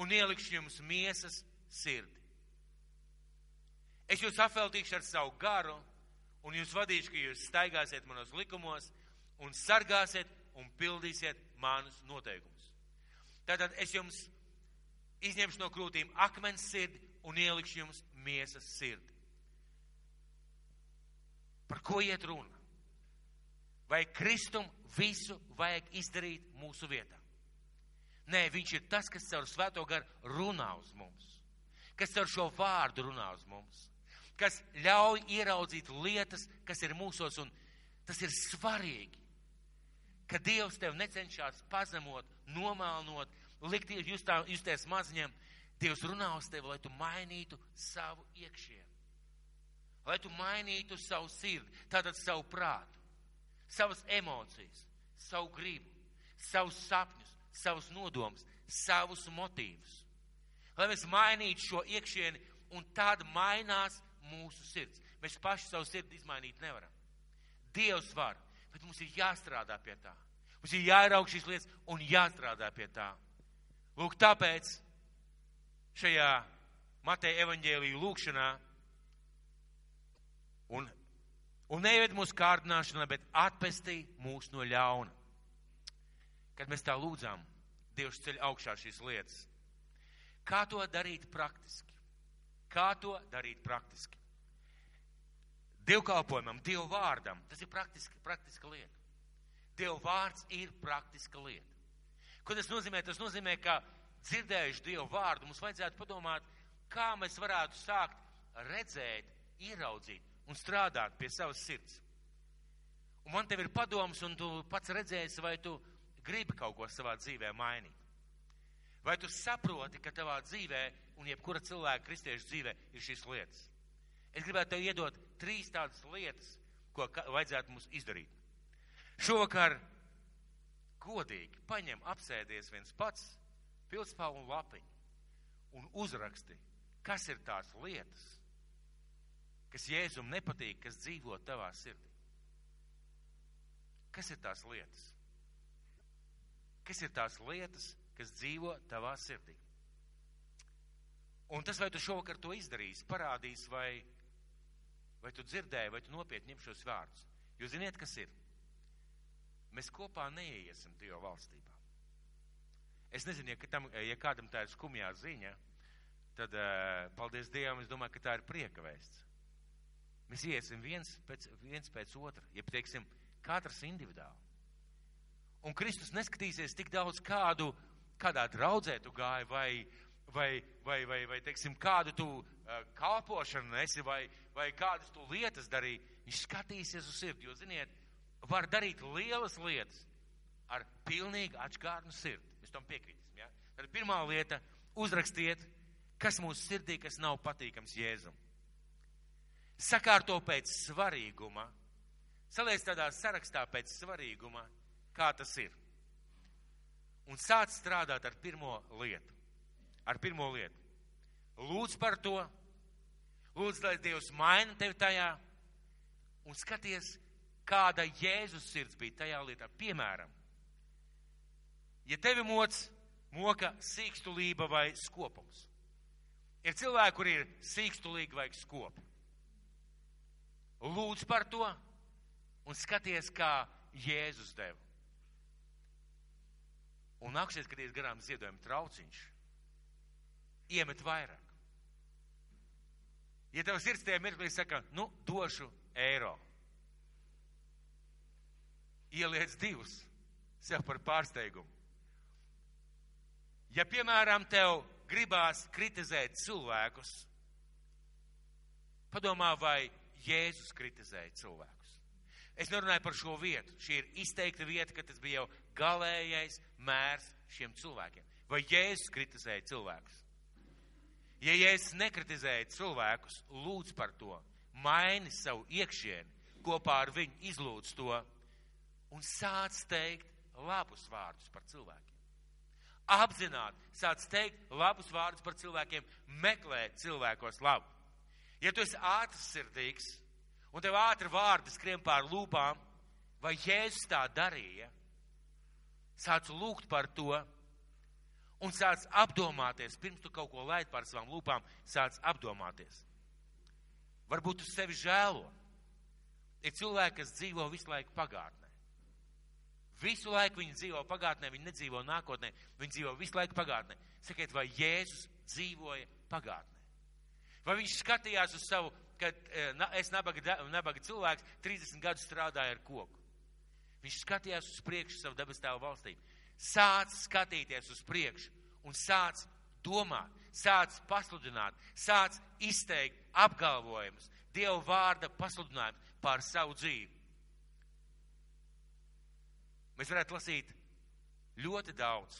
un ielikšu jums miesas sirdi. Es jūs apveltīšu ar savu garu un jūs vadīšu, ka jūs staigāsiet manos likumos un sargāsiet un pildīsiet manus noteikumus. Tātad es jums izņemšu no krūtīm akmens sirdi un ielikšu jums miesas sirdi. Par ko iet runa? Vai Kristum visu vajag izdarīt mūsu vietā? Nē, viņš ir tas, kas caur Svēto garu runā uz mums, kas caur šo vārdu runā uz mums, kas ļauj ieraudzīt lietas, kas ir mūsos, un tas ir svarīgi, ka Dievs tev necenšas pazemot, nomelnot, likt justies maziņam. Dievs runā uz tevi, lai tu mainītu savu iekšienu, lai tu mainītu savu sirdi, tātad savu prātu, savas emocijas, savu gribu, savus sapņus, savus nodomus, savus motīvus. Lai mēs mainītu šo iekšieni, un tad mainās mūsu sirds. Mēs paši savu sirdi izmainīt nevaram. Dievs var, bet mums ir jāstrādā pie tā. Mums ir jāieraug šīs lietas un jāstrādā pie tā. Lūk, tāpēc šajā Mateja evaņģēlija lūkšanā un neved mūsu kārdināšanā, bet atpestī mūs no ļauna. Kad mēs tā lūdzām, Dievs ceļ augšā šīs lietas. Kā to darīt praktiski? Kā to darīt praktiski? Dievkalpojumam, Dievu vārdam, tas ir praktiska lieta. Dievu vārds ir praktiska lieta. Ko tas nozīmē? Tas nozīmē, ka dzirdējuši Dievu vārdu, mums vajadzētu padomāt, kā mēs varētu sākt redzēt, ieraudzīt un strādāt pie savas sirds. Un man tev ir padoms, un tu pats redzēsi, vai tu gribi kaut ko savā dzīvē mainīt. Vai tu saproti, ka tavā dzīvē un jebkura cilvēka kristiešu dzīvē ir šīs lietas? Es gribētu tev iedot 3 tādas lietas, ko vajadzētu mums izdarīt. Šovakar godīgi paņem, apsēdies viens pats, pildspalvu un lapiņu un uzraksti, kas ir tās lietas, kas Jēzum nepatīk, kas dzīvo tavā sirdī. Kas ir tās lietas? Kas ir tās lietas, kas dzīvo tavā sirdī? Un tas, vai tu šovakar to izdarīsi, parādīs, vai tu dzirdēji, vai tu nopietni ņem šos vārdus. Jūs ziniet, kas ir? Mēs kopā neiesim Dieva valstībā. Es nezinu, ja kādam tā ir skumjā ziņa, tad paldies Dievam, es domāju, ka tā ir prieka vēsts. Mēs iesim viens pēc otra, ja teiksim, katrs individuāli. Un Kristus neskatīsies tik daudz kādā draudzē tu gāji, vai teiksim, kādu tu kalpošanu nesi, vai kādas tu lietas darīji. Viņš skatīsies uz sirdi, jo, ziniet, var darīt lielas lietas ar pilnīgi atžgārnu sirdi. Mēs tam piekrītam, ja? Tad pirmā lieta, uzrakstiet, kas mūsu sirdī, kas nav patīkams Jēzum. Sakārto pēc svarīguma, saliec tādā sarakstā pēc svarīguma, kā tas ir. Un sāc strādāt ar pirmo lietu. Lūdz par to, lūdz, lai Dievs maina tevi tajā, un skaties, kāda Jēzus sirds bija tajā lietā. Piemēram, ja tevi moka sīkstulība vai skopums. Ir cilvēki, kuri ir sīkstulīgi vai skopi. Lūdz par to un skaties, kā Jēzus deva. Un nāksies, kad ies garām ziedojuma trauciņš, iemet vairāk. Ja tev sirds tajā mirklī saka, došu eiro, ieliec 2 sev par pārsteigumu. Ja, piemēram, tev gribās kritizēt cilvēkus, padomā, vai Jēzus kritizēja cilvēkus. Es nerunāju par šo vietu. Šī ir izteikta vieta, ka tas bija jau galējais mērs šiem cilvēkiem. Vai Jēzus kritizēja cilvēkus? Ja Jēzus nekritizēja cilvēkus, lūdz par to, maini savu iekšieni, kopā ar viņu izlūdz to un sāc teikt labus vārdus par cilvēkiem. Apzināti sāc teikt labus vārdus par cilvēkiem, meklē cilvēkos labu. Ja tu esi ātrsirdīgs un tev ātri vārdi skrien pār lūpām, vai Jēzus tā darīja, sāc lūgt par to un sāc apdomāties, pirms tu kaut ko laid pār savām lūpām, sāc apdomāties. Varbūt tu sevi žēlo. Ir cilvēki, kas dzīvo visu laiku pagātnē. Visu laiku viņi dzīvo pagātnē, viņi nedzīvo nākotnē, viņi dzīvo visu laiku pagātnē. Sakiet, vai Jēzus dzīvoja pagātnē? Vai viņš skatījās uz savu, kad es nabaga cilvēks 30 gadus strādāju ar koku? Viņš skatījās uz priekšu savu debes Tēva valstību. Sāc skatīties uz priekšu un sāc domāt, sāc pasludināt, sāc izteikt apgalvojumus, Dieva vārda pasludinājumus pār savu dzīvi. Mēs varētu lasīt ļoti daudz,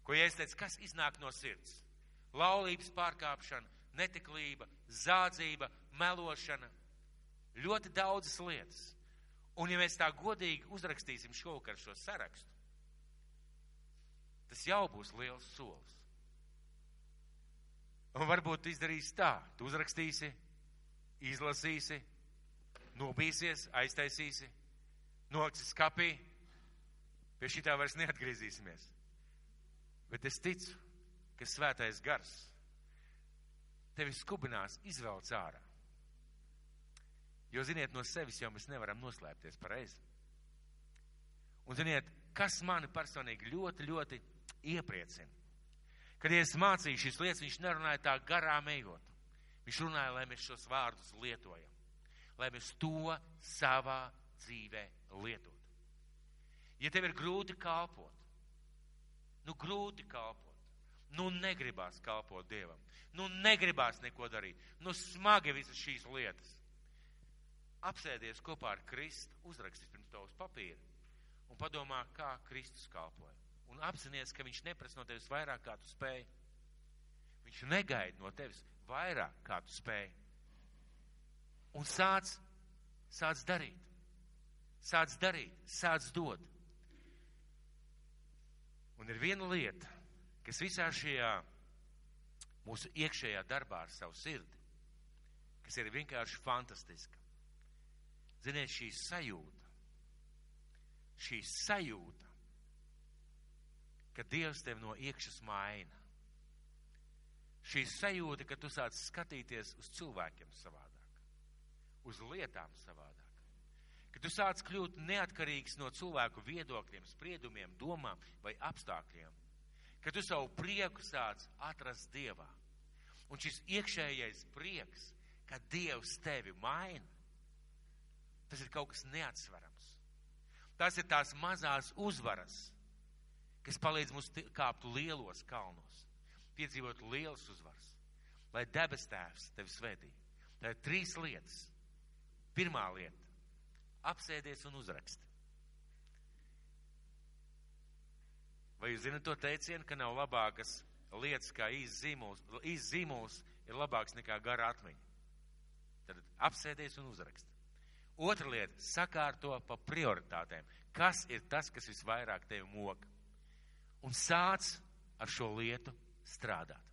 ko Jēzus teica, kas iznāk no sirds. Laulības pārkāpšana, netiklība, zādzība, melošana, ļoti daudzas lietas. Un ja mēs tā godīgi uzrakstīsim šovakar šo sarakstu, tas jau būs liels solis. Un varbūt tu izdarīsi tā, tu uzrakstīsi, izlasīsi, nobīsies, aiztaisīsi, noliksi skapī, pie šitā vairs neatgriezīsimies. Bet es ticu, ka svētais gars tevi skubinās izvelc ārā. Jo, ziniet, no sevis jau mēs nevaram noslēpties pareizi. Un, ziniet, kas mani personīgi ļoti, ļoti iepriecina. Kad es mācīju šīs lietas, viņš nerunāja tā garām ejot. Viņš runāja, lai mēs šos vārdus lietojam. Lai mēs to savā dzīvē lietot. Ja tev ir grūti kalpot, grūti kalpot, negribās kalpot Dievam, negribās neko darīt, smagi visas šīs lietas. Apsēdies kopā ar Kristu, uzrakstīs pirms tavas papīra un padomā, kā Kristus kalpoja. Un apzinies, ka viņš neprasa no tevis vairāk, kā tu spēj. Viņš negaida no tevis vairāk, kā tu spēj. Un sāc darīt. Sāc darīt, sāc dot. Un ir viena lieta, kas visā šajā mūsu iekšējā darbā ar savu sirdi, kas ir vienkārši fantastiska. Ziniet, šī sajūta, ka Dievs tevi no iekšas maina. Šī sajūta, ka tu sāc skatīties uz cilvēkiem savādāk, uz lietām savādāk. Ka tu sāc kļūt neatkarīgs no cilvēku viedokļiem, spriedumiem, domām vai apstākļiem. Ka tu savu prieku sāc atrast Dievā. Un šis iekšējais prieks, ka Dievs tevi maina, tas ir kaut kas neatsverams. Tas ir tās mazās uzvaras, kas palīdz mums kāpt lielos kalnos, piedzīvot lielas uzvaras, lai debes Tēvs tevi svētī. Tā ir 3 lietas. Pirmā lieta - apsēdies un uzraksti. Vai jūs zināt to teicienu, ka nav labākas lietas kā īsts zīmols ir labāks nekā gara atmiņa? Tad apsēdies un uzraksti. Otra lieta - sakārto pa prioritātēm. Kas ir tas, kas visvairāk tevi moka? Un sāc ar šo lietu strādāt.